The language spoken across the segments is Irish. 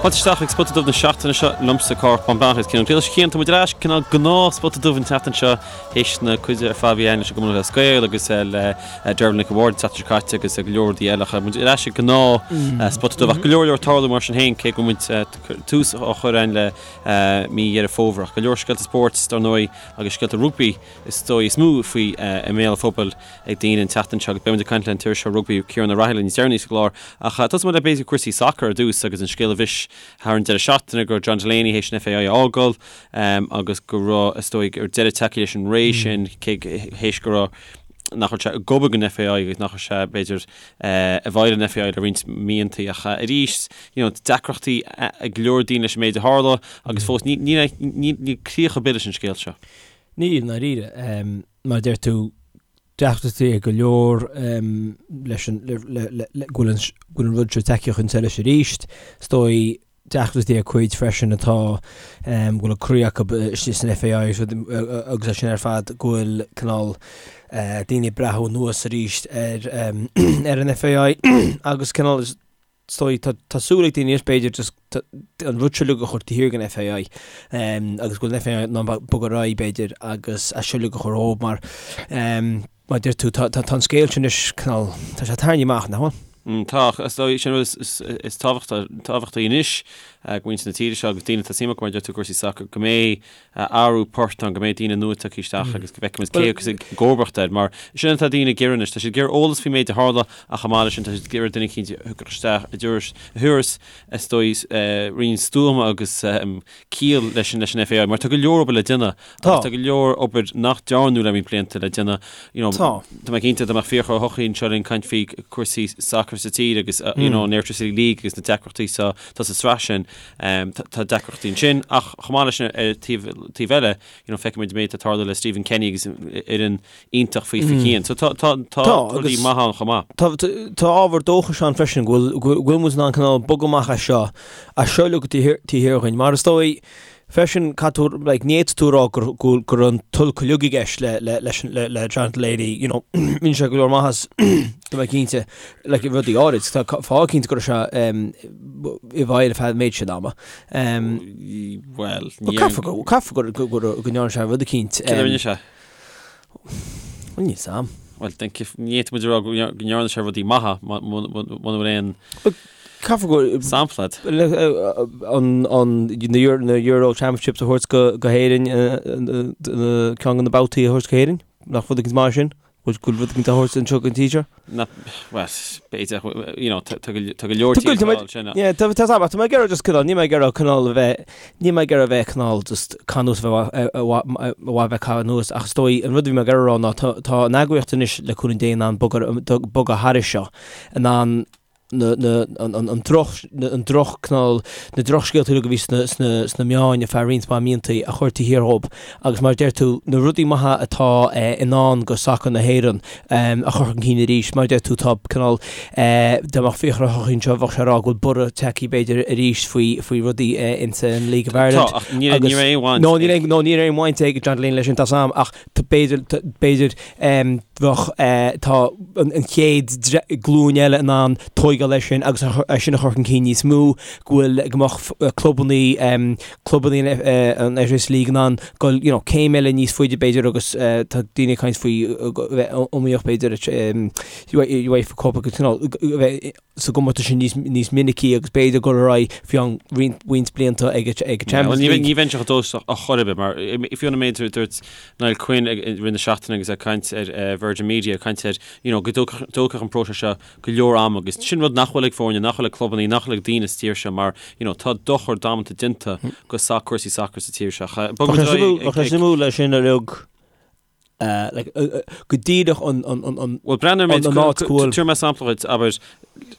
Fáilte isteach ag Spota Dubh na seachtaine seo liomsa Cárthach Bán Breathnach agus Cian Ó Griallais. Cian, tá muid ar ais cineál gnáth Spota Dubh an tseachtain seo théis na cuide ar fad a bhí againn leis an gCumann Lúthchleas Gael agus le Dervla Nic an Bhaird an tseachtain seo caite agus go leor rudaí eile. Ach muid ar ais ag gnáth Spota Dubh ach go leor leor ag tarlú mar sin féin cé go bhfuil muid tús á chur againn le mí Dheireadh Fómhair. Ach go leor scéalta spóirt dar ndóigh agus scéalta rugbaí is dóigh is mó faoi i mbéal an phobail ag daoine an tseachtain seo agus beidh muid ag caint le an t-iriseoir rugbaí Ciarán Ó Raghallaigh níos deireanaí sa gclár. Ach tosóidh muid le b'fhéidir cúrsaí sacair ar dtús agus an scéal a bhris thar an deireadh seachtaine go raibh John Delaney théis an FAI a fhágáil agus go raibh is dóigh go raibh deireadh tagtha leis an ré sin cé théis go raibh nach raibh sé ag obair don FAI agus nach raibh sé b'fhéidir i bhfeighil an FAI le roinnt míontaí ach arís you know deacrachtaí ag go leor daoine leis an méid a tharla agus fós ní ní níl críoch ar bith leis an scéal seo. Níl, i ndáiríre. Mar a deir tú, deacrachtaí ag go leor leis an, le, le, le, le, go bhfuil an, go bhfuil an rud seo tagtha chun solais arís. Is dóigh deacrachtaí ag cuid freisin atá, go bhfuil a gcroí acu istigh san FAI agus rud, agus é sin ar fad, go bhfuil cineál daoine ag breathnú anuas arís ar, ar an FAI agus cineál is, Is dóigh, tá, tá súil ag daoine anois b'fhéidir just an rud seo uilig a chur taobh thiar den FAI agus go bhfuil an FAI in ann bogadh ar aghaidh b'fhéidir agus é seo uilig a chur dhóibh mar mar a deir tú tá, tá, tá an scéal sin anois cineál, tá sé tarraingthe amach, nach bhfuil? Tá, is dóigh sin rud is, is tábhachtaí, tábhachtaí anois do mhuintir na tíre seo agus daoine atá suim acu mar a deir tú i gcúrsaí sacair go mbeidh athrú poirt ann, go mbeidh daoine nua tagtha isteach agus go bhfeicfimid cé acu i gcomharbacht air, mar sin atá daoine ag iarraidh anois. Tá siad ag iarraidh eolas faoin méid a tharla ach chomh maith leis sin tá siad ag iarraidh duine eicínt a thiocfadh isteach a thabharfas, is dóigh, roinnt stuama agus ciall leis an leis an FAI, mar tá go leor obair le déanamh agus tá go leor obair nach dearnadh le roinnt blianta le déanamh. You know, tá mé cinnte dá mbeadh Fiachra Ó hEochaidh anseo linn caint faoi cúrsaí sacair sa tír agus you know, an Airtricity League agus na deacrachtaí sa tá sa sraith sin. Tá deacrachtaí ansin ach chomh maith leis sin ar taobh taobh eile, you know, feicimid an méid atá ag tarlú le Stephen Kenny agus fhoireann iontach faoi faoi chian. So tá tá tá rudaí maithe ann chomh maith. Tá tá ábhar dóchais ann freisin go bhfuil go bhfuil muid in ann cineál bogadh amach as seo, as seo uilig taobh thiar dhúinn. Mar is dóigh freisin caithfidh tú like ní fhéadfaidh tú a rá gur go go raibh an t-olc uilig i gceist le le leis an le le John Delaney, you know, rinne sé go leor maitheas tá mé cinnte like rudaí áirid tá fáth cinnte go raibh sé i bhfeighil ar feadh an méid sin ama. Bhuel, ní Caithfidh go caithfidh go go go go ndearna sé rud eicínt. Céard a rinne sé? Bhuel, níl 's a'm. Bhuel, ní fhéadfaidh muid a rá go ndearna sé rudaí maithe muna bhfuil aon Caithfidh go sampla agat. an an na Euro Championships a thabhairt go go hÉirinn ceann de na babhtaí a thabhairt go hÉirinn, nach rud éicint maith sin? Go bhfuil rud éicint á thabhairt anseo don tír seo? Na, bhuel, b'fhéidir, you know, tá go tá go leor tíortha ag sin. Yeah, tá tá tá tá mé ag iarraidh just cineál, níl mé ag iarraidh cineál a bheith, níl mé ag iarraidh a bheith cineál just caitheamh anuas a bheith a bheith caitheamh anuas ach is dóigh an rud a bhí mé ag iarraidh a rá ná tá tá an eagraíocht anois le cúnamh Dé in ann bogadh bogadh thairis seo, in ann na, na, an, an, an droch, an droch cineál, na drochscéalta uilig a bhí sna, sna, sna meáin ar feadh roinnt mhaith míontaí a chur taobh thiar dhób agus mar a deir tú, na rudaí maithe atá eh, i ndán go sacar na hÉireann em, a chur chun cinn arís. Mar a deir tú, tá cineál, eh, dá mbeadh Fiachra Ó hEochaidh anseo bheadh sé ag rá go bhfuil borradh tagtha b'fhéidir arís faoi, faoi rudaí eh, insa an League of Ireland. Tá, ach ní, ní raibh aon bhaint No, níl aon, no, níl aon bhaint ag John Delaney leis sin, tá 's a'm, ach b'fhéidir, b'fhéidir, bheadh, tá an chéad glúin eile in ann tóigeáil leis sin agus é sin a chur chun cinn níos mó, go bhfuil, go mbeadh clubannaí, clubannaí an Airtricity League in ann dul, you know, céim eile níos faide b'fhéidir agus tá daoine ag caint faoi bheith iomaíoch b'fhéidir, UEFA Cup agus, you know, bheith sa gcomórtas sin níos níos minicí agus b'fhéidir dul ar aghaidh faoi cheann roinnt roinnt blianta ag ag Champions League. Ní bheinnse chomh dóchasach ar chor ar bith mar fiú an méid a dúirt Niall Quinn i rith na seachtaine agus é ag caint ar Virgin Media ag caint ar you know go dtógfadh an próiseas seo go leor ama agus sin rud nach bhfuil ag foirne, nach bhfuil ag clubanna, nach bhfuil ag daoine sa tír seo mar you know tá dochar damanta déanta go sac cúrsaí sacair sa tír seo. Bheadh sé suimiúil leis sin a rug go díreach an Bhuel, breathnaigh ar an méid, an áit go bhfuil. Tabharfaidh mé sampla dhuit, abair,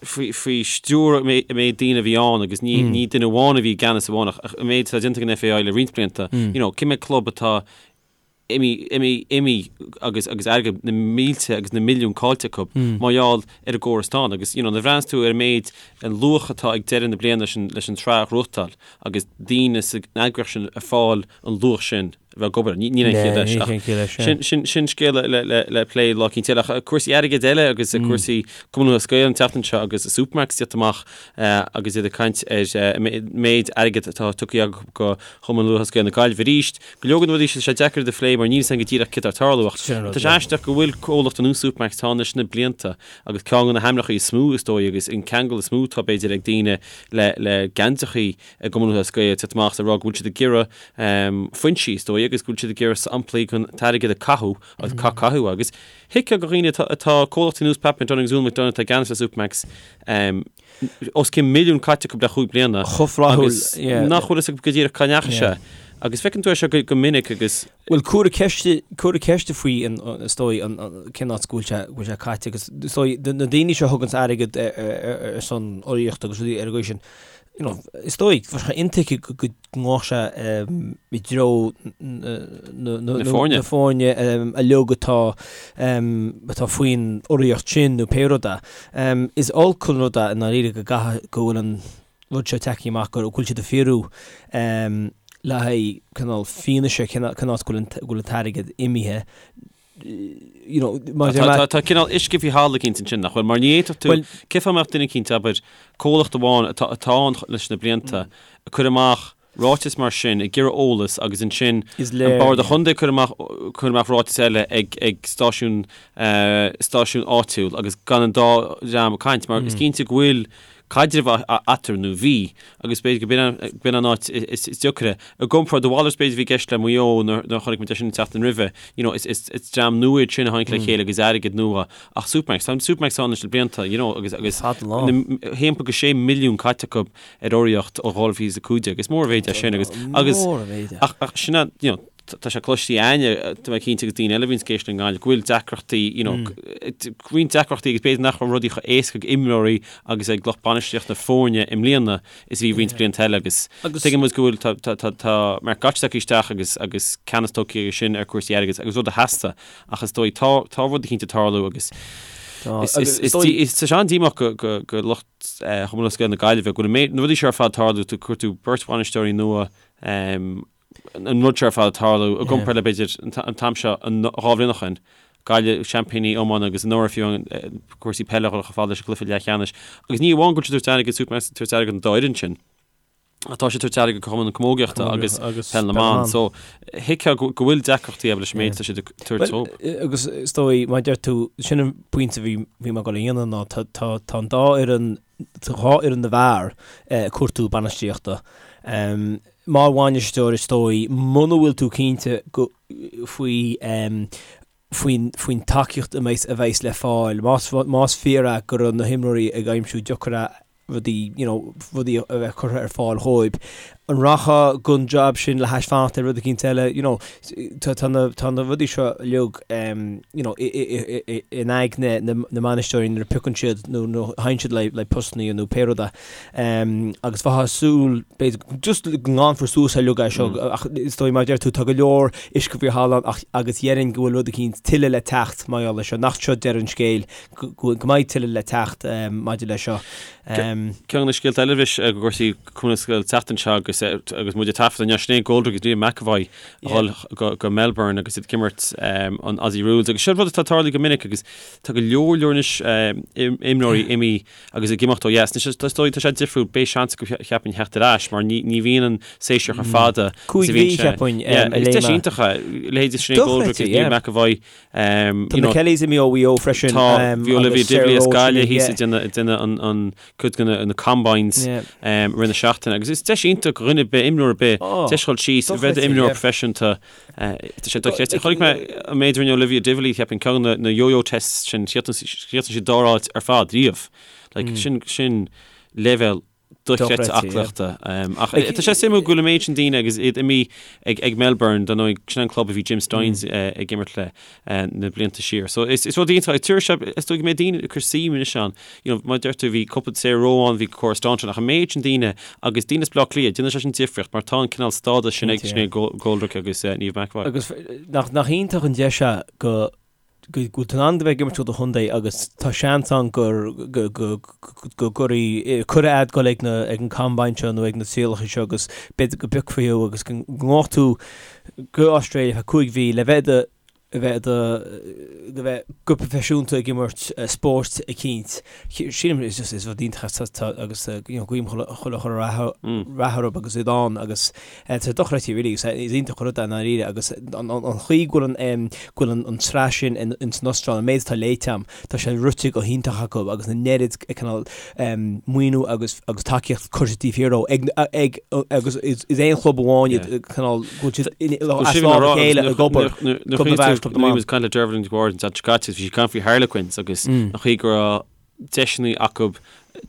faoi stiúir an méid daoine a bhí ann agus ní ní duine amháin a bhí i gceannas amháin ach an méid atá déanta ag an FAI le roinnt blianta, you know, cé mhéad club atá imithe, imithe, imithe agus agus airgead na mílte agus na milliúin caillte acu mar gheall ar an gcóras atá ann agus, you know, nuair a bhreathnaíonn tú ar an méid, an luach atá ag deireadh na bliana leis an leis an tsraith a ghnóthachtáil agus daoine san eagraíocht sin ag fáil an luach sin. bheith ag obair. Níl aon chiall leis. Ach sin, sin, sin scéal le, le, le plé lá eicínt eile. Ach cúrsaí airgid eile agus cúrsaí Cumann Lúthchleas Gael an tseachtain seo agus Supermacs ag tíocht amach agus iad ag caint ar méid airgid atá tugtha acu go Chumann Lúthchleas Gael na Gaillimhe arís. Go leor de na rudaí seo, tá sé deacair iad a phlé mar níl a fhios againn go díreach céard atá ag tarlú ach tá sé aisteach go bhfuil comhlacht ar nós Supermacs atá ann leis na blianta agus ceann de na hainmneacha is mó is dóigh agus an ceangal is mó atá b'fhéidir ag daoine le le geansaithe i gCumann Lúthchleas Gael ag tíocht amach is ag rá go bhfuil siad ag iarraidh foinsí is dóigh agus go bhfuil siad ag iarraidh samplaí den t-airgead a caitheadh agus ca caitheadh agus thuigfeá do dhaoine atá atá comhlachtaí ar nós Pat McDonagh agus Úna McDonagh atá i gceannas ar Supermacs os cionn milliún caite acu le chúig bliana Chomh flaithiúil, agus yeah. nach bhfuil fhios acu go díreach cá ndeachaigh sé. Agus feiceann tú é seo go, go minic agus. Bhuel, cuireadh ceist, cuireadh ceist faoi an, is dóigh, an, an, cén áit go bhfuil sé, go bhfuil sé caite agus is dóigh, na daoine seo a thuganns airgead ar, ar, ar son urraíochta agus rudaí ar an gcaoi sin, you know, is dóigh, bheadh sé intuigthe go, go ngabhfadh sé i dtreo na, na, Na foirne. na foirne uilig atá, atá faoin urraíocht sin nó pé rud é. Is olc an rud é i ndáiríre go gcaithfidh, go bhfuil an rud seo tagtha amach go bhfuil siad ag fiafraí le haghaidh cineál fianaise cén áit go bhfuil an, go bhfuil an t-airgead imithe. You know, maidir le. Tá cineál uisce faoi thalamh eicínt ansin, nach bhfuil? Mar ní fhéadfadh tú, cén fáth a mbeadh duine eicínt, abair, comhlacht amháin atá atá ann leis na blianta, ag cur amach ráiteas mar sin, ag iarraidh eolas agus ansin an Bord an Chontae ag cur amach cur amach ráiteas eile ag ag stáisiún stáisiún áitiúil agus gan an dá dhream ag caint mar is cinnte go bhfuil caidreamh eatarthu nó bhí, agus b'fhéidir go b'in an áit is deacra. I gcomparáid, a mhalairt b'fhéidir a bhí i gceist le Maigh Eo nuair a chonaic muid é sin an tseachtain roimhe, you know, is is dream nua iad sin a tháinig le chéile agus airgead nua ach Supermacs, tá Supermacs ann leis na blianta, you know, agus agus 1.6 milliún caite acu ar urraíocht ó 2015, is mór an mhéid é sin agus agus ach ach sin é, you know, tá sé cloiste againne, tá mé cinnte agus daoine eile a bhíonns ag éisteacht i nGaillimh, go bhfuil deacrachtaí, you know, roinnt deacrachtaí agus b'fhéidir nach raibh rudaí chomh éasca ag imreoirí agus ag lucht bainistíochta na foirne i mbliana is a bhí roinnt blianta eile agus tuigeann muid go bhfuil, tá, tá, tá, tá Mark Gotch tagtha isteach agus, agus ceannas tógtha aige sin ar chúrsaí airgid agus rud a theastaigh ach is dóigh tá, tá rud eicínt ag tarlú agus is, is, is, is, tá sé an-díomách go, go, go lucht Chumann Lúthchleas Gael na Gaillimhe go bhfuil an méid, na rudaí seo ar fad ag tarlú, tú, cuir tú beirt bhainisteoirí nua, an rud seo ar fad ag tarlú i gcomparáid le b'fhéidir an t-am seo 2 bhliain ó shin. Gaillimh, seaimpíní iomána agus anuraidh fiú cúrsaí peile a dhul chomh fada leis an gcluiche leathcheannais. Agus ní amháin go bhfuil siad ag tabhairt airgead Supermacs ag tabhairt airgead don dá fhoireann sin, ach tá siad ag tabhairt airgead do Chumann na Camógaíochta agus Peil na mBan. So thuigfeá go bhfuil deacrachtaí acu leis an méid atá siad ag tabhairt dóibh. Agus is dóigh, mar a deir tú, sin an pointe a bhí mé ag dul a dhéanamh ná tá an dá fhoireann, tá dhá fhoireann na bhfear ag cuartú bainistíochta. Mar bhainisteoir is dóigh, muna bhfuil tú cinnte go, faoi, faoin, faoin tacaíocht a mbeidh, a bheas le fáil, más, más fíor é go raibh na himreoirí ag aimsiú deacair rudaí, you know, rudaí a bheith curtha ar fáil dhóibh, an rachfá don job sin le hais fanacht ar rud eicínt eile, you know, tá, tá na, tá na rudaí seo uilig, you know, i, i, i, i, in aigne na, na mbainisteoirí nuair a piocann siad nó, nó théann siad le, le postanna nó pé rud é. Agus bheifeá ag súil, b'fhéidir, just go nglanfar suas uilig é seo, ach is dóigh, mar a deir tú, tá go leor uisce faoi thalamh ann agus déarfainn go bhfuil rud eicínt tuilleadh le teacht mar gheall air seo, nach seo deireadh an scéil, go mbeidh tuilleadh le teacht maidir leis seo. Ceann de na scéalta eile arís i gcúrsaí Cumann Lúthchleas Gael an tseachtain seo agus agus muid ag taifeadadh inniu, Sinéad Goldrick agus Niamh McEvoy a dhul go go Melbourne agus iad ag imirt an Aussie Rules agus seo rud atá ag tarlú go minic agus tá go leor leor anois imreoirí imithe Agus ag imeacht ó dheas. Anois, is dóigh, tá sé difriúil, beidh seans acu cheapfainn theacht ar ais mar ní, ní bhíonn an séasúr chomh fada is a bhíonn sé. Cheapfainn, Yeah, is deis iontach é. Leithéidí Sinéad Goldrick agus Niamh McEvoy. Tá na Kellys imithe ó Mhaigh Eo freisin. Tá, bhí Olivia Divilly as Gaillimh thíos ag déanamh, ag déanamh an, an, cuid de na, na combines i rith na seachtaine. Agus is deis iontach do dhuine ar bith, imreoir ar bith, deis dhul síos, a bheith i d'imreoir proifisiúnta. Tá sé dochreidte. Chonaic mé an méid a rinne Olivia Divilly, cheapfainn, ceann de na yo-yo tests sin, chríochnaigh sí dara háit ar fad riamh. Like, sin, sin leibhéal dochreidte aclaíochta. Ach tá sé suimiúil go bhfuil an méid sin daoine agus iad imithe ag, ag Melbourne, dar ndóigh, sin an club a bhí Jim Stynes ag imirt le na blianta siar. So is, is rud iontach, tabharfaidh sé, is dóigh go mbeidh daoine ag cur suim anois ann. You know, mar a deir tú, bhí cúpla Sarah Rowe ann, bhí Cora Staunton, ach an méid sin daoine agus daoine as Baile Átha Cliath, déanann sé sin difríocht mar tá an cineál stádas sin ag Sinéad Goldrick agus Niamh McEvoy. Agus nach, nach iontach an deis é go. go bhfuil tú in ann a bheith ag imirt do do chontae agus tá seans ann gur go go go gcuirfidh cuireadh a'd dul ag na ag an combine seo nó ag na trialacha seo agus b'fhéidir go bpiocfaí thú agus go ngabhfadh tú go Australia feadh 5 mhí le bheith i do a bheith i do go bheith go proifisiúnta ag imirt spóirt eicínt. Sílim is just is rud iontach é tá agus you know guím chuile chuile chuile rath rath orthu agus iad ann agus tá sé dochreidte really is is iontach an rud é i ndáiríre agus an an chaoi go bhfuil an go bhfuil an an tsraith sin in in san Astráil an méid atá léite a'm tá sé rite go hiontach acu agus an oiread cineál maoiniú agus agus tacaíocht curtha taobh thiar dó ag ag agus is is aon chlub amháin iad cineál go bhfuil siad as lámh a chéile ag obair Club na bhfear, Club na mban. Caint le Dervla Nic Bhaird an tseachtain seo caite, bhí sí ag caint faoi Harlequins agus an chaoi go raibh deiseanna acu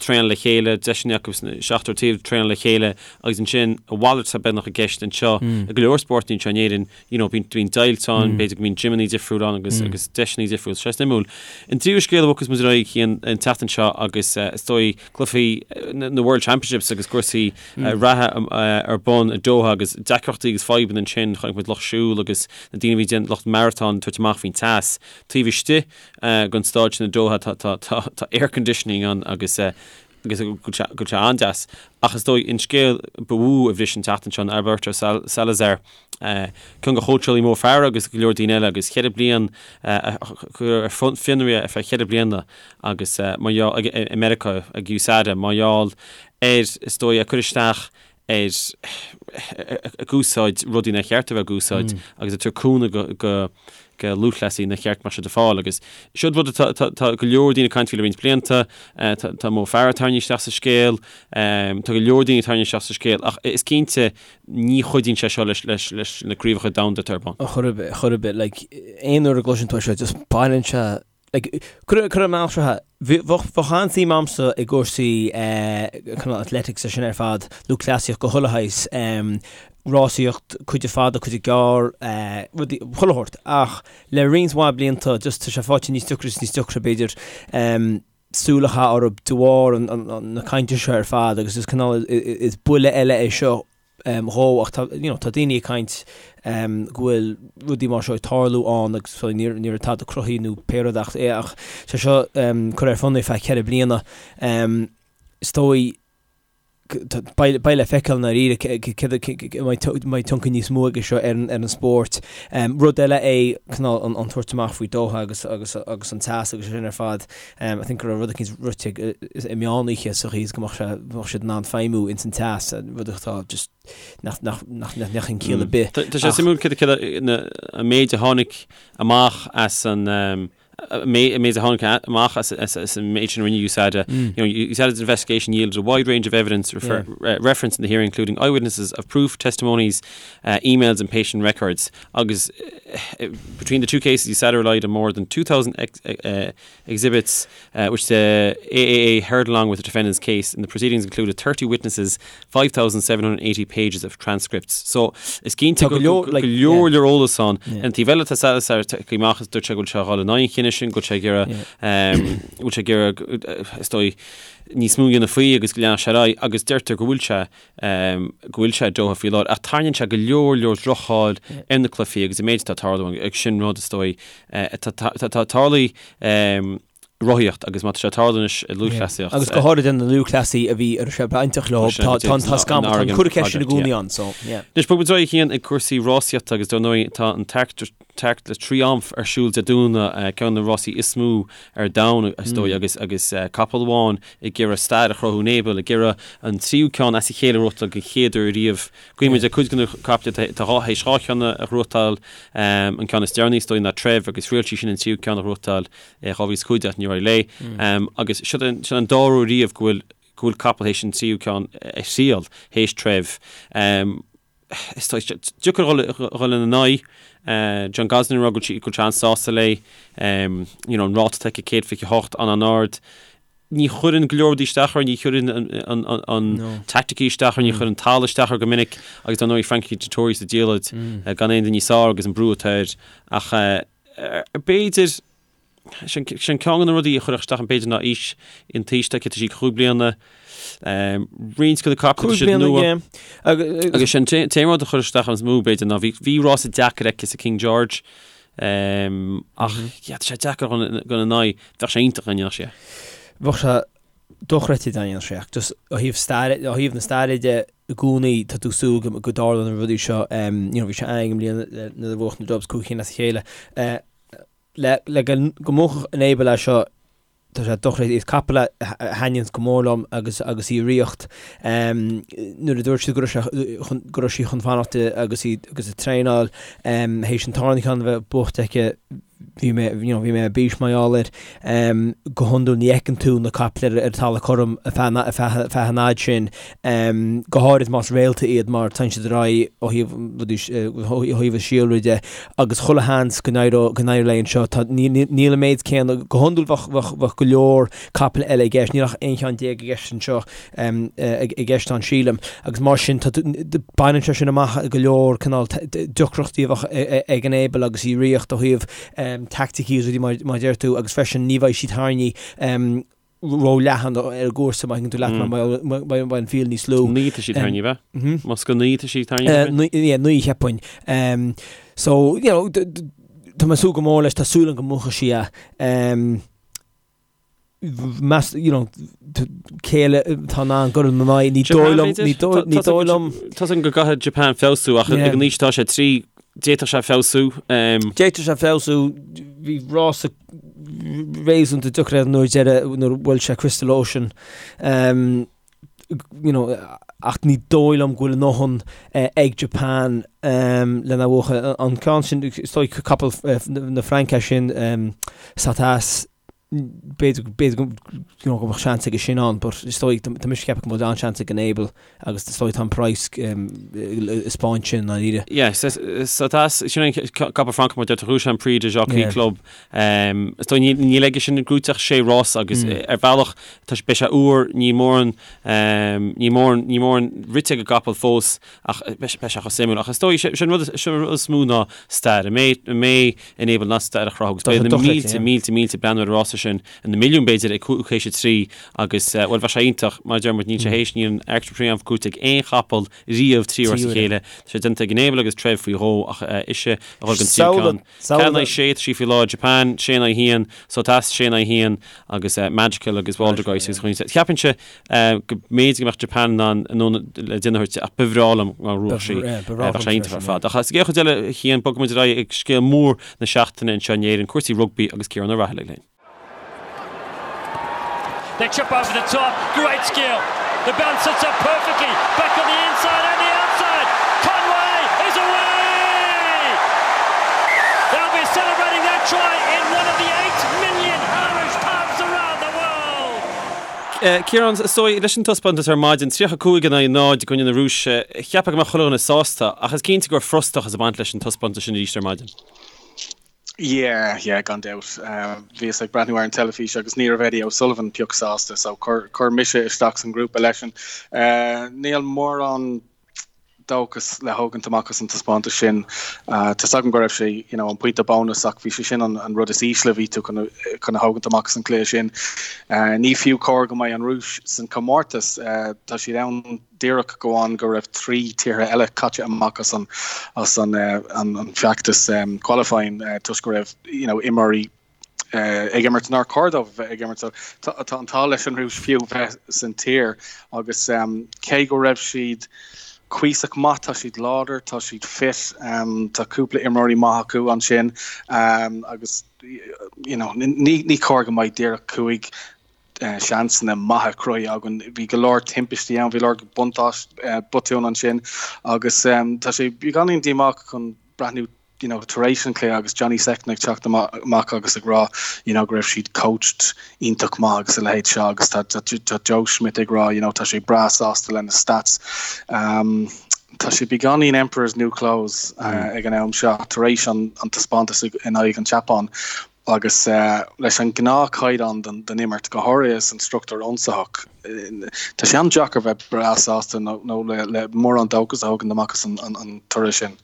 traenáil le chéile, deiseanna acu sna seachtar taobh traenáil le chéile agus ansin a mhalairt atá beagnach i gceist anseo i go leor spórtanna anseo in Éirinn, you know, bíonn bíonn deighilt ann, b'fhéidir go mbíonn gymeanna difriúil ann agus agus deiseanna difriúil. Sé suimiúil. An tríú scéal a bhogfas muid ar aghaidh Cian an tseachtain seo agus is dóigh cluichí na World Championships agus cúrsaí reatha ar bun i Doha agus deacrachtaí agus fadhbanna ansin, chonaic muid lucht siúil agus na daoine a bhí ag déanamh lucht maratón ag tabhairt amach faoin teas. Taobh istigh den staid sin i Doha tá tá tá tá air conditioning ann agus agus go bhfuil sé an-deas. Ach is dóigh an scéal ba mhó a bhris an tseachtain seo ná Alberto Salazar, ceann de chóitseálaí Mo Farah agus go leor daoine eile agus cheithre bliain a cuireadh ar fionraí ar feadh cheithre bliana agus mar gheall i Meiriceá ag USADA mar gheall ar is dóigh ag cur isteach ar ag úsáid rudaí nár cheart a bheith ag úsáid agus ag tabhairt cúnamh go go go lúthchleasaí nár cheart go mbeadh siad ag fáil agus seo rud atá tá tá go leor daoine ag caint faoi le roinnt blianta tá tá Mo Farah tarraingthe isteach sa scéal tá go leor daoine tarraingthe isteach sa scéal ach is cinnte ní chuidíonn sé seo leis leis leis na craobhacha domhanda atá ar bun. Chor ar bith, chor ar bith, like aon uair a gcloiseann tú é seo just baineann sé Like, cuir cuir an mbealach seo, bheadh bheadh an-suim a'msa i gcúrsaí cineál athletics is sin ar fad, lúthchleasaíocht de chuile shaghas, rásaíocht, cuid de fada, cuid de gearr, rudaí, chuile shórt. Ach le roinnt mhaith blianta just tá sé faighte níos deacra is níos deacra b'fhéidir súil a chaitheamh orthu de bharr an na cainte seo ar fad agus is cineál is buille eile é seo dhó ach tá you know tá daoine ag caint go bhfuil rudaí mar seo ag tarlú ann agus so ní ní raibh tada cruthaithe nó pé rud ach é ach sé seo curtha ar fionraí feadh cheithre bliana is dóigh beidh beidh le feiceáil i ndáiríre céard an mbeidh tionchar níos mó aige seo ar an ar an spórt. Rud eile é cineál an an tabhairt amach faoi Doha agus agus agus an teas agus sin ar fad. I think go raibh rud eicínt rite i meán oíche sa chaoi is go mbeadh sé, mbeadh siad in ann feidhmiú ins an teas, rud atá just nach, nach, nach, nach mbeadh aon chiall ar bith. Tá sé suimiúil céard céard an méid a tháinig amach as an an méid a tháinig amach as as an méid sin a rinne USADA. You know, USADA's investigation yielded a wide range of evidence refer, yeah. referenced in the hearing, including eyewitnesses of proof, testimonies, uh, emails and patient records. Agus between the two cases, USADA relied on more than 2,000 ex, uh, exhibits, uh, which the AAA heard along with the defendant's case. And the proceedings included 30 witnesses, 5,780 pages of transcripts. So is cinnte go leor leor eolas ann. An taobh eile tá Salazar tagtha amach is dúirt sé go bhfuil sé ag dul in aghaidh an chinnidh sin, go bhfuil sé ag iarraidh go bhfuil sé ag iarraidh is dóigh níos mó a dhéanamh faoi agus go leanfadh sé ar aghaidh agus deirtear go bhfuil sé go bhfuil sé i Doha faoi láthair ach tarraingíonn sé go leor leor droch-cháil ar na cluichí agus an méid atá ag tarlú agus sin rud is dóigh atá tarlaithe rothaíocht agus má tá sé ag tarlú anois i lúthchleasaíocht. Agus go háirithe na lúthchleasaí a bhí a raibh sé bainteach leo, tá tá scamall, tá an cur ceist sin i gcónaí ann, so yeah. Anois bogfaidh muid ar aghaidh a Chian ag cúrsaí rásaíochta agus dar ndóigh tá an Arc de Triomphe ar siúl Dé Domhnaigh, ceann de na rásaí is mó ar domhan is dóigh agus agus capall amháin ag iarraidh stair a chruthú Enable, ag iarraidh an tríú ceann as a chéile a ghnóthachtáil den chéad uair riamh. Guímid ar cuid de na caiple atá théis dhá cheann a ghnóthachtáil, an ceann is deireanaí is dóigh ná Treve agus thriail sí sin an tríú ceann a ghnóthachtáil i 2015 ach níor éirigh léi. Agus seo an dara huair riamh go bhfuil go bhfuil capall théis an tríú ceann a thriail théis Treve. Is deacair dhul ina n-aghaidh. John Gosden ag rá go bhfuil sé an-sásta léi. You know, an ráta atá aici 128 an-an-ard. Ní chuireann go leor rudaí isteach uirthi, ní chuireann an taicticí isteach uirthi, ní chuireann an talamh isteach uirthi go minic agus dar ndóigh Frankie Dettori sa diallait gan aon duine níos fearr agus an brú atá air. Ach b'fhéidir Sin ceann de na rudaí a chuirfeadh isteach an b'fhéidir ná aois an t-aois atá aici, tá sí 5 bliana, roinnt de na caiple tá siad nua. Agus sin t-aon rud a chuir isteach an is mó b'fhéidir ná bhí rása deacair aici sa King George. Ach yeah, tá sé deacair dul ina n-aghaidh. Bheadh sé iontach dá ndéanfadh sé. Bheadh sé dochreidte dá ndéanfadh sé ach just ó thaobh staire, ó thaobh na staire de i gcónaí tá tú ag súil go go dtarlódh na rudaí seo. You know, bhí sé ann i mbliana nuair a bhuaigh na Dubs 5 cinn as a chéile. Le le go go mbuafadh Enable é seo Tá sé dochreidte. Is capall a thaitníonns go mór liom agus agus í i riocht. Nuair a dúirt siad go raibh sé chun go raibh sí chun fanacht agus í agus ag traenáil théis an tarna ceann a bheith buaite aici bhí mé you know bhí mé ar bís mar gheall air. Go hiondúil ní fheiceann tú na caiple ar ar talamh cothrom ar feadh ar feadh ar feadh an fhaid sin. Go háirid más réalta iad mar téann siad ar aghaidh ó thaobh rudaí ó thaobh an síolra de. agus chuile sheans go n-éireodh go n-éireodh léi anseo. Tá, níl an méid céanna, go hiondúil bheadh, bheadh, bheadh go leor capaill eile i gceist, níl ach 11 cheann i gceist anseo, i gceist ann sílim, agus mar sin tá, baineann sé sin amach go leor cineál deacrachtaí a bheadh ag Enable agus í i riocht ó thaobh teaicticí agus rudaí mar, mar a deir tú agus freisin ní bheidh sí tarraingthe ró-leathan ar an gcúrsa má thuigeann tú leat mar beidh an field níos lú. 9 tá sí tarraingthe, ab ea? Más go 9 tá sí tarraingthe? Yeah, 9 cheapfainn. So, you know, tá mé ag súil go mór leis, tá súil agam go mbuafaidh sí é. Meas, you know, cé eile atá in ann dul ina n-aghaidh, ní dóigh liom, ní dóigh, ní dóigh liom. Tá 's agam go gcaithfidh Japan feabhsú ach ag an aois atá sé, 3, d'fhéadfadh sé feabhsú. D'fhéadfadh sé feabhsú, bhí rása réasúnta deacair air nuair deireadh nuair a bhuail sé Crystal Ocean you know ach ní dóigh liom go bhfuil a ndóthain ag Japan lena bhuachan. An ceann sin is dóigh capall na Fraince sin Satas b'fhéidir b'fhéidir you know go mbeadh seans aige sin ann but is dóigh tá mise ag ceapadh go bhfuil an-seans ag Enable Agus is dóigh tá an praghas ag spáint sin i ndáiríre. Yeah, Satas, sin an capall Francach mar deir tú, bhuaigh sé an Prix du Jockey Club. Is dóigh níl aige sin gnóite ach sé rás agus ar bhealach tá beidh sé úr, níl mórán, níl mórán, níl mórán rite ag an gcapall fós ach beidh sé chomh suimiúil. Ach is dóigh sin rud, sin rud is mó ná stair. An mbeidh, an mbeidh Enable in ann stair a chruthú agus beidh na mílte, mílte, mílte ag breathnú ar an rása sin. na milliúin b'fhéidir ag 5 théis a 3 agus, bhuel, bheadh sé iontach, mar a deir muid, níl sé théis, níl an Arc de Triomphe gnóite ag aon chapall riamh trí uair as a chéile. Tá sé déanta ag Enable agus Treve faoi dhó ach ise a dhul don tríú ceann. 4 in aghaidh 6 tá sí faoi láthair, Japan, 6 in aghaidh 1, Satas, 6 in aghaidh 1 agus Magical agus Waldgeist agus chuile. Cheapfainnse go mb'fhéidir go mbeadh Japan in ann anonn le déanamh a thabhairt ach ba bhreá liom dá mbuafadh sí. Bheadh sé iontach ar fad. Ach sa gcéad chuid eile, a Chian, bogfaidh muid ar aghaidh ag scéal mór na seachtaine anseo in Éirinn, cúrsaí rugbaí agus Ciarán Ó Raghallaigh linn. They chip over the top, great skill. The bounce sits up perfectly, back on the inside and the outside. Conway is away! They'll be celebrating that try in one of the 8 million Irish pubs around the world. Ciarán, is dóigh, leis an taispeántas ar maidin, 35 in aghaidh 0 i gcoinne na Rúise, cheapfá go mbeadh chuile dhuine sásta, ach is cinnte go raibh frustrachas ag baint leis an taispeántas sin arís ar maidin. Yeah, yeah, gan dabht. Bhíos ag breathnú ar an teilifís agus ní raibh Eddie O'Sullivan pioc sásta, so chuir mise isteach san grúpa leisean. Níl mórán dóchas le thógaint amach as an taispeántas sin. Tá's agam go raibh sé, you know, an pointe bónas ach bhí sé sin an, an rud is ísle a bhí tú chun, chun a thógaint amach as an cluiche sin. Ní fiú cóir go mbeidh an Rúis san comórtas. Tá siad ann díreach go amháin go raibh 3 tíortha eile caite amach as an as an an feachtas qualifying toisc go raibh you know imreoirí ag imirt nár chóir dóibh a bheith ag imirt. So tá an t-ádh leis an Rúis fiú bheith san tír agus cé go raibh siad cuíosach maith, tá siad láidir, tá siad fit, tá cúpla imreoirí maith acu ansin agus you know ní ní cóir go mbeidh díreach 5 seansanna maithe cruthaithe againn. Bhí go leor timpistí ann, bhí go leor buntáis botún ansin agus tá sé beagáinín díomách chun breathnú you know, tar éis an chluiche agus Johnny Sexton ag teacht amach agus ag rá you know, go raibh siad coached iontach maith agus a leithéid seo agus tá, tá, tá Joe Schmidt ag rá you know, tá sé breá sásta lena stats. Um, tá sé beagáinín Emperor's New Clothes uh, ag an am seo tar éis an, an taispeántas in aghaidh an tSeapáin. Agus leis an ngnáthchaighdeán den imirt, go háirithe san struchtúr ionsaitheach, tá sé an-deacair bheith breá sásta nó le mórán dóchas a thógaint amach as an toradh sin.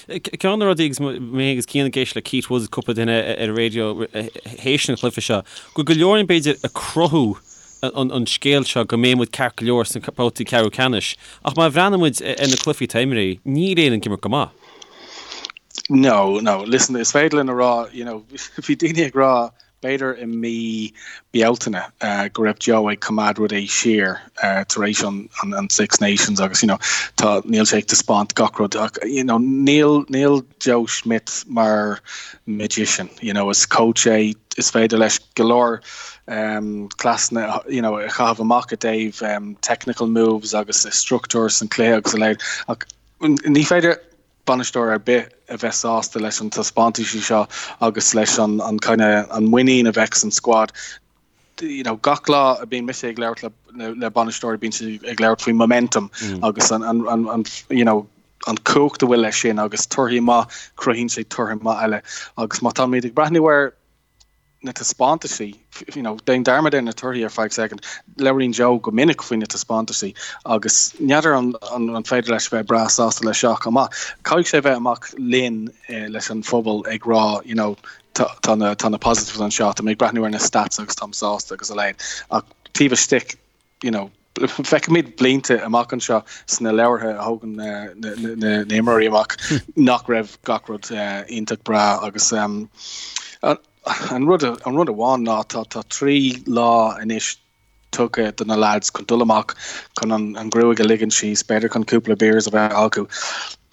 Ceann de na rudaí, agus mé agus Cian ag éisteacht le Keith Woods, cúpla duine ar an raidió théis an chluiche seo, go bhfuil go leor againn b'fhéidir ag cruthú an scéal seo go mbeidh muid ceart go leor sna babhtaí ceathrú ceannais. Ach má bhreathnaíonn muid ar na cluichí atá imeartha, níl Éire ag imirt go maith. No, no, listen, is féidir linn a rá, you know, bhí daoine ag rá b'fhéidir i mí Bealtaine go raibh Joe ag coimeád rudaí siar tar éis an, an, an Six Nations agus, you know, tá, níl sé ag taispeáint gach rud ach, you know, níl, níl Joe Schmidt mar magician, you know, is coach é, is féidir leis go leor um, cleasanna, you know, a chaitheamh amach i dtaobh um, technical moves agus struchtúr san cluiche agus a leithéid ach ní féidir bainisteoir ar bith a bheith sásta leis an taispeántaisí seo agus leis an an kind of an muinín a bheadh san squad. You know, gach lá a bíonn mise ag labhairt le, le bainisteoirí bíonn siad ag labhairt faoi momentum mm. agus an, an, an, an you know, an cumhacht a bhfuil leis sin agus torthaí maith cruthaíonn sé torthaí maith eile agus má táimid ag breathnú ar na taispeántaisí, you know, déan dearmad ar na torthaí ar feadh second, labhraíonn Joe go minic faoi na taispeántaisí agus n'fheadar an, an, an féidir leis bheith breá sásta leis seo chomh maith. Caithfidh sé bheith amach linn eh, leis an phobal ag rá, you know, tá, tá na, tá na positives anseo, tá mé ag breathnú ar na stats agus táim sásta agus a leithéid. Ach taobh istigh, you know, feicfimid blianta amach anseo sna leabhartha a thógann na himreoirí amach nach raibh gach rud iontach breá agus an rud an rud amháin ná tá tá 3 lá anois tugtha do na lads chun dul amach chun an an ghruaig a ligean síos, b'fhéidir chun cúpla beers a bheith acu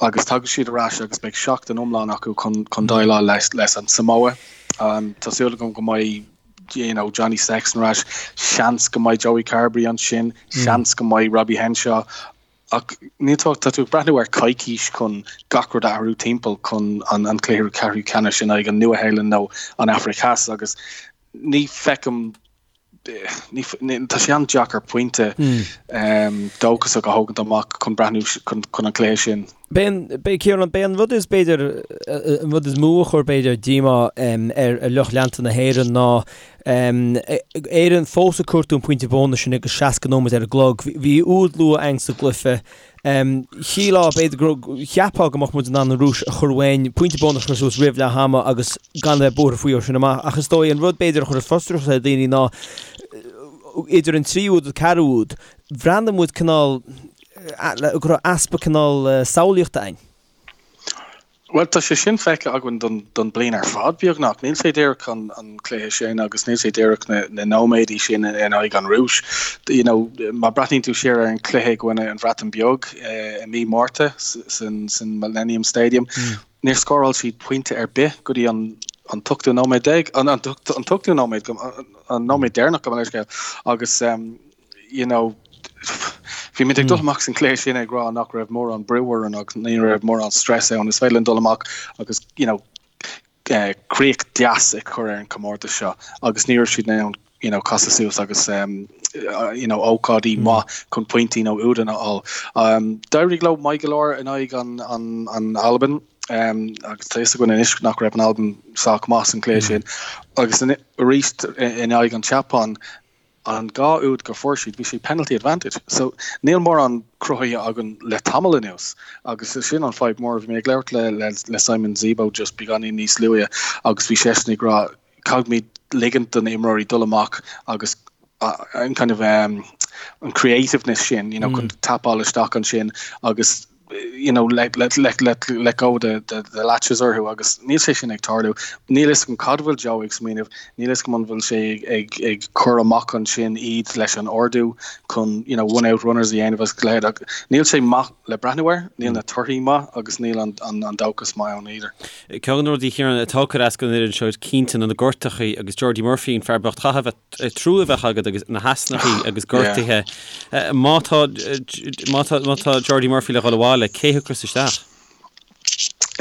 agus tagann siad ar ais agus beidh seachtain iomlán acu chun chun déileáil leis leis an Samoa. Tá súil agam go mbeidh you know, Johnny Sexton ar ais, seans go mbeidh Joey Carbery ansin, seans go mbeidh Robbie Henshaw, ach níl tú, tá tú ag breathnú ar coicís chun gach rud a athrú timpeall chun an, an cluiche ceathrú ceannais in aghaidh an Nua-Shéalainn nó an Afraic Theas agus ní feicim ní, ní, tá sé an-deacair pointe um, dóchasach a thógaint amach chun breathnú chun, chun an cluiche sin. B'é an, b'é, Ciarán, b'é an rud is, b'fhéidir, an rud is mó a chuir, b'fhéidir, díomá ar lucht leanta na hÉireann ná Éirinn fós ag cuartú an pointe bónais sin agus 60 nóiméad ar an gclog. Bhí úd luath againn sa gcluiche. Shílfeá, b'fhéidir, go, cheapfá go mbeadh muid in ann an Rúis a chur uainn, pointe bónais a chur suas roimh leath ama agus gan a bheith buartha faoi ó sin amach. Ach is dóigh an rud, b'fhéidir, a chuir frustrachas ar dhaoine ná idir an tríú úd agus ceathrú úd, bhreathnaigh muid cineál, go raibh easpa cineál samhlaíochta againn. Bhuel, tá sé sin feicthe againn don, don bliain ar fad, beagnach. Níl sé díreach an, an cluiche sin agus níl sé díreach na, na nóiméadaí sin in aghaidh an Rúis. You know, má breathnaíonn tú siar ar an cluiche i gcoinne an Bhreatain Beag eh, i mí Márta san, san Millennium Stadium, mm. níor scóráil siad pointe ar bith go dtí an an t-ochtú nóiméad déag, an, an, an t-ochtú nóiméad, an nóiméad deireanach gabh mo leithscéal agus um, you know, bhí muid ag dul amach san cluiche sin ag rá nach raibh mórán brú orainn agus ní raibh mórán stress ann. Is féidir linn dul amach agus, you know, eh, críoch deas a chur ar an comórtas seo agus ní raibh siad in ann you know, casadh suas agus um, uh, you know, ócáidí mm. maith chun pointí nó údanna a fháil. Um, D'éirigh leo maith go leor in aghaidh an, an, an Albain um, agus tá fhios againn anois nach raibh an Albain sách maith san cluiche mm. sin agus arís in aghaidh an tSeapáin An dá úd go fuair siad, bhí sé penalty advantage. So níl mórán cruthaithe againn le tamall anuas agus sin an fadhb mór. Bhí mé ag labhairt le le le Simon Zebo just beagáinín níos luaithe agus bhí seisean ag rá caithfimid ligint do na imreoirí dul amach agus an kind of um, an creativeness sin, you know, chun tapáil isteach ansin agus you know, let, let, let, let, let go the, the, the latches orthu agus níl sé sin ag tarlú. Níl fhios agam cad bhfuil Joe ag smaoineamh, níl fhios agam an bhfuil sé ag, ag, ag cur amach ansin iad leis an ordú chun you know, one out runners a dhéanamh agus a leithéid ach níl sé maith le breathnú air, níl na torthaí maith agus níl an, an, an dóchas maith ann either. Ceann de na rudaí Ciarán atá ag cur as don fhoireann seo cinnte ná na gortachaí agus Jordi Murphy an fear bocht chaithfeadh a bheith trua a bheith agat agus na heasnachaí agus gortuithe. Má tá má tá má tá Jordi Murphy le dhul abhaile, cé thiocfas isteach?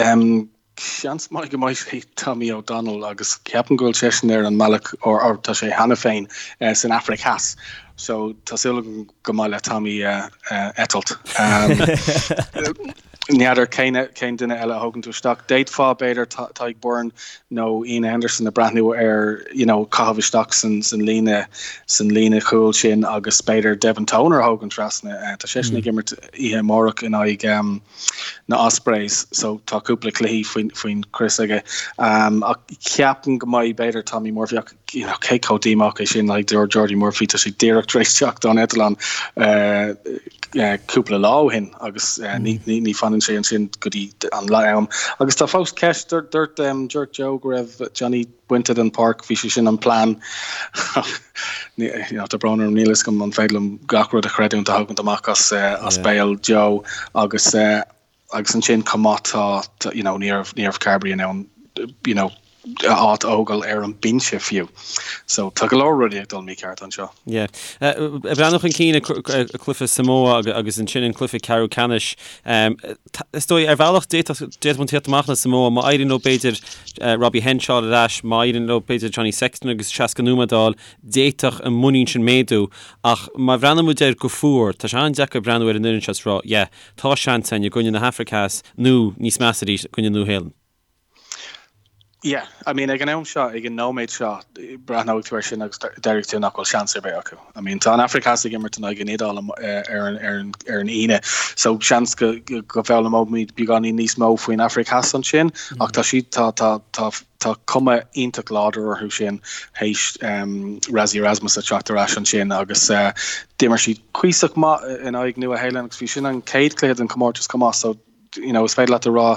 Um, seans maith go mbeidh sé Tommy O'Donnell agus ceapaim go bhfuil seisean ar an mbealach or, or tá sé cheana féin uh, san Afraic Theas. So tá súil agam go mbeidh le Tommy uh, uh, eitilt. Um, N'fheadar cén cén duine eile a thógann tú isteach. D'fhéadfá, b'fhéidir, Tadhg Beirne nó Iain Henderson a breathnú ar you know caitheamh isteach san san líne san líne chúil sin agus b'fhéidir Devin Toner a thógaint trasna. Tá seisean ag imirt oíche amárach in aghaidh um, na Ospreys so tá cúpla cluichí faoin faoin chrios aige. Um, ach ceapaim go mbeidh b'fhéidir Tommy Murphy ach you know, cé chomh díomách é sin like Jordi Murphy tá sé díreach tar éis teacht ón eitleán uh, cúpla lá ó shin agus ní fanann sé ansin go dtí an lá am. Agus tá fós ceist, dúirt dúirt Joe go raibh Johnny bainte den pháirc, bhí sé sin an plean. Tá brón orm, níl a fhios agam an féidir liom gach rud a chreidiúint a thagann amach as as béal Joe agus Agus ansin chomh maith tá, you know, ní raibh, ní raibh Carbery in ann, you know, a áit a fhágáil ar an binse fiú. So tá go leor rudaí ag dul mícheart anseo. Yeah. Ag breathnú chun cinn ag cluiche Samoa agus ansin an cluiche ceathrú ceannais, is dóigh ar bhealach d'fhéadfadh, d'fhéadfadh muid tíocht amach le Samoa má éiríonn leo b'fhéidir Robbie Henshaw ar ais, má éiríonn leo b'fhéidir Johnny Sexton agus 60 nóiméad a fháil, d'fhéadfadh an muinín sin méadú. Ach má bhreathnaíonn muid air go fuar, tá sé an-deacair breathnú ar an fhoireann seo is rá, yeah, Tá seans againn i gcoinne na hAfraice Theas nó, níos measa arís, i gcoinne Nua-Shéalainn. Yeah, I mean ag an am seo, ag an nóiméad seo, breathnóidh tú air sin agus déarfaidh tú nach bhfuil seans ar bith acu. I mean tá an Afraic Theas ag imirt in aghaidh an Iodáil ar an ar an ar an Aoine, so seans go go bhfoghlaimeoimid beagáinín níos mó faoin Afraic Theas ansin, ach tá siad tá tá tá Tá cuma iontach láidir orthu sin théis Rassie Erasmus a teacht ar ais ansin agus d'imir siad cuíosach maith in aghaidh Nua Shéalainn agus bhí sin an chéad chluiche den chomórtas chomh maith so you know, is féidir leat a rá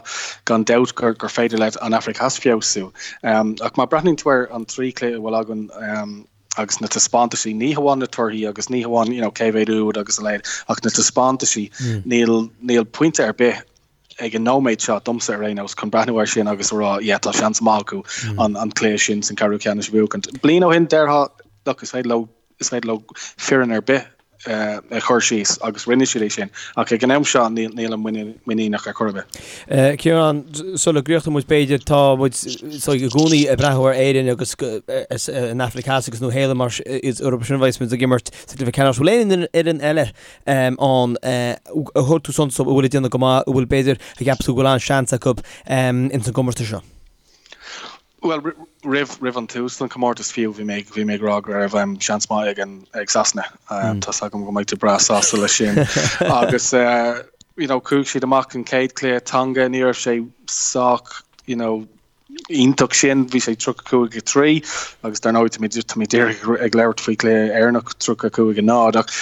gan dabht gur, gur féidir le an Afraic Theas feabhsú. Um, ach má breathnaíonn tú ar an trí chluiche a bhfuil againn um, agus na taispeántaisí, ní hamháin na torthaí agus ní hamháin you know, cé mhéad úd agus a leithéid, ach na taispeántaisí, mm. níl, níl pointe ar bith ag an nóiméad seo, domsa ar aon nós, chun breathnú air sin agus a rá, yeah, tá seans maith acu an an cluiche sin san ceathrú ceannais a bhuachaint. Bliain ó shin, déarfá, look, is féidir leo, is féidir leo foireann ar bith a chur síos agus rinne siad é sin. Ach ag an am seo, níl, nílim muiníneach ar chor ar bith. Ciarán, sula gcríochnóidh muid b'fhéidir, tá muid so i gcónaí ag breathnú ar Éirinn agus an Afraic Theas agus Nua Shéalainn mar is orthu sin a bheas muid ag imirt sa gcluiche ceannais. Bhfuil aon fhoireann eile ann a thug tú suntas dóibh a bhfuil ag déanamh go maith, a bhfuil b'fhéidir a cheapas tú go bhfuil an-seans acu ins an gcomórtas seo? Bhuel, roimh roimh an tús den chomórtas fiú, bhí mé bhí mé ag rá go raibh seans maith ag an ag Sasana. Tá's agam go mbeidh tú breá sásta leis sin. Agus you know, chuaigh siad amach an chéad chluiche Tonga, ní raibh sé sách you know, iontach sin, bhí sé 35 3 agus dar ndóigh tá tá mé díreach ag labhairt faoi chluiche Éireannach 35 0 ach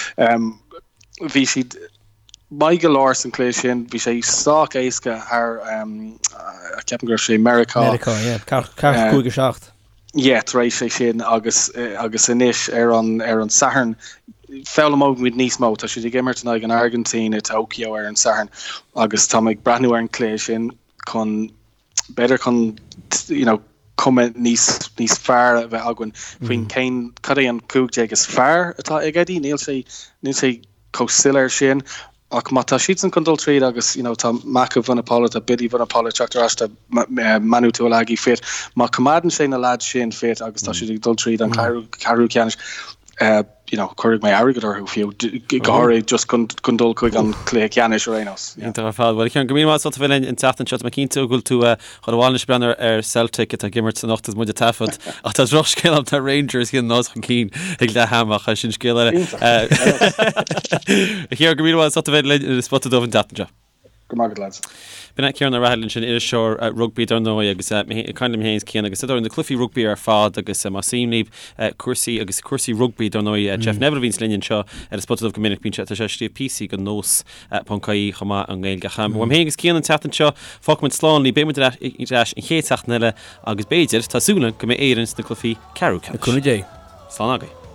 bhí siad maith go leor san chluiche sin, bhí sé sách éasca thar ceapaim go raibh sé Meiriceá. Meiriceá, yeah, 45 7. Yeah, tar éis é sin agus agus anois ar an ar an Satharn foghlaimeoidh muid níos mó. Tá siad ag imirt in aghaidh an Airgintín i Tokyo ar an Satharn agus tá mé ag breathnú ar an chluiche sin chun b'fhéidir chun you know, cuma níos, níos fearr a bheith againn faoin mm. cén cad é an 15 is fearr atá ag Eddie, níl sé níl sé chomh soiléir sin ach má tá siadsan chun dul tríd agus you know, tá Mako Vunipola, tá Billy Vunipola teacht ar ais tá Manu Tuilagi fit, má choimeádann sé na lads sin fit agus tá mm. siad ag dul tríd an mm. ceathrú ceannais you know, cuirfidh mé airgead orthu fiú, go háirithe just chun chun dul chuig an cluiche ceannais ar aon nós. Iontach ar fad. Bhuel, Ciarán, go míle maith as ucht a bheith linn an tseachtain seo. Tá mé cinnte go bhfuil tú chun abhaile anois ag breathnú ar Celtic atá ag imirt anocht agus muid ag taifead. Ach tá drochscéal ann, tá Rangers 1-0 chun cinn ag leath ama ach sin scéal eile. Iontach. Ciarán, go míle maith as ucht a bheith linn ar an Spota Dubh an tseachtain seo. Go maith agat lads. B'in é Ciarán Ó Raghallaigh ansin, iriseoir rugbaí dar ndóigh agus ag caint liom féin is Cian agus ar na cluichí rugbaí ar fad agus más suim libh cúrsaí agus cúrsaí rugbaí dar ndóigh Jeff Neville a bhíonns linn anseo ar an Spota Dubh go minic bíonn sé tá sé ag scríobh píosaí do Nós ponc ie chomh maith i nGaeilge. Ach uaim féin agus Cian an tseachtain seo fágfaidh muid slán libh beidh muid ar ais an chéad seachtain eile agus b'fhéidir tá súil agam go mbeidh Éirinn sna cluichí ceathrú ceannais. Le cúnamh Dé. Slán agaibh.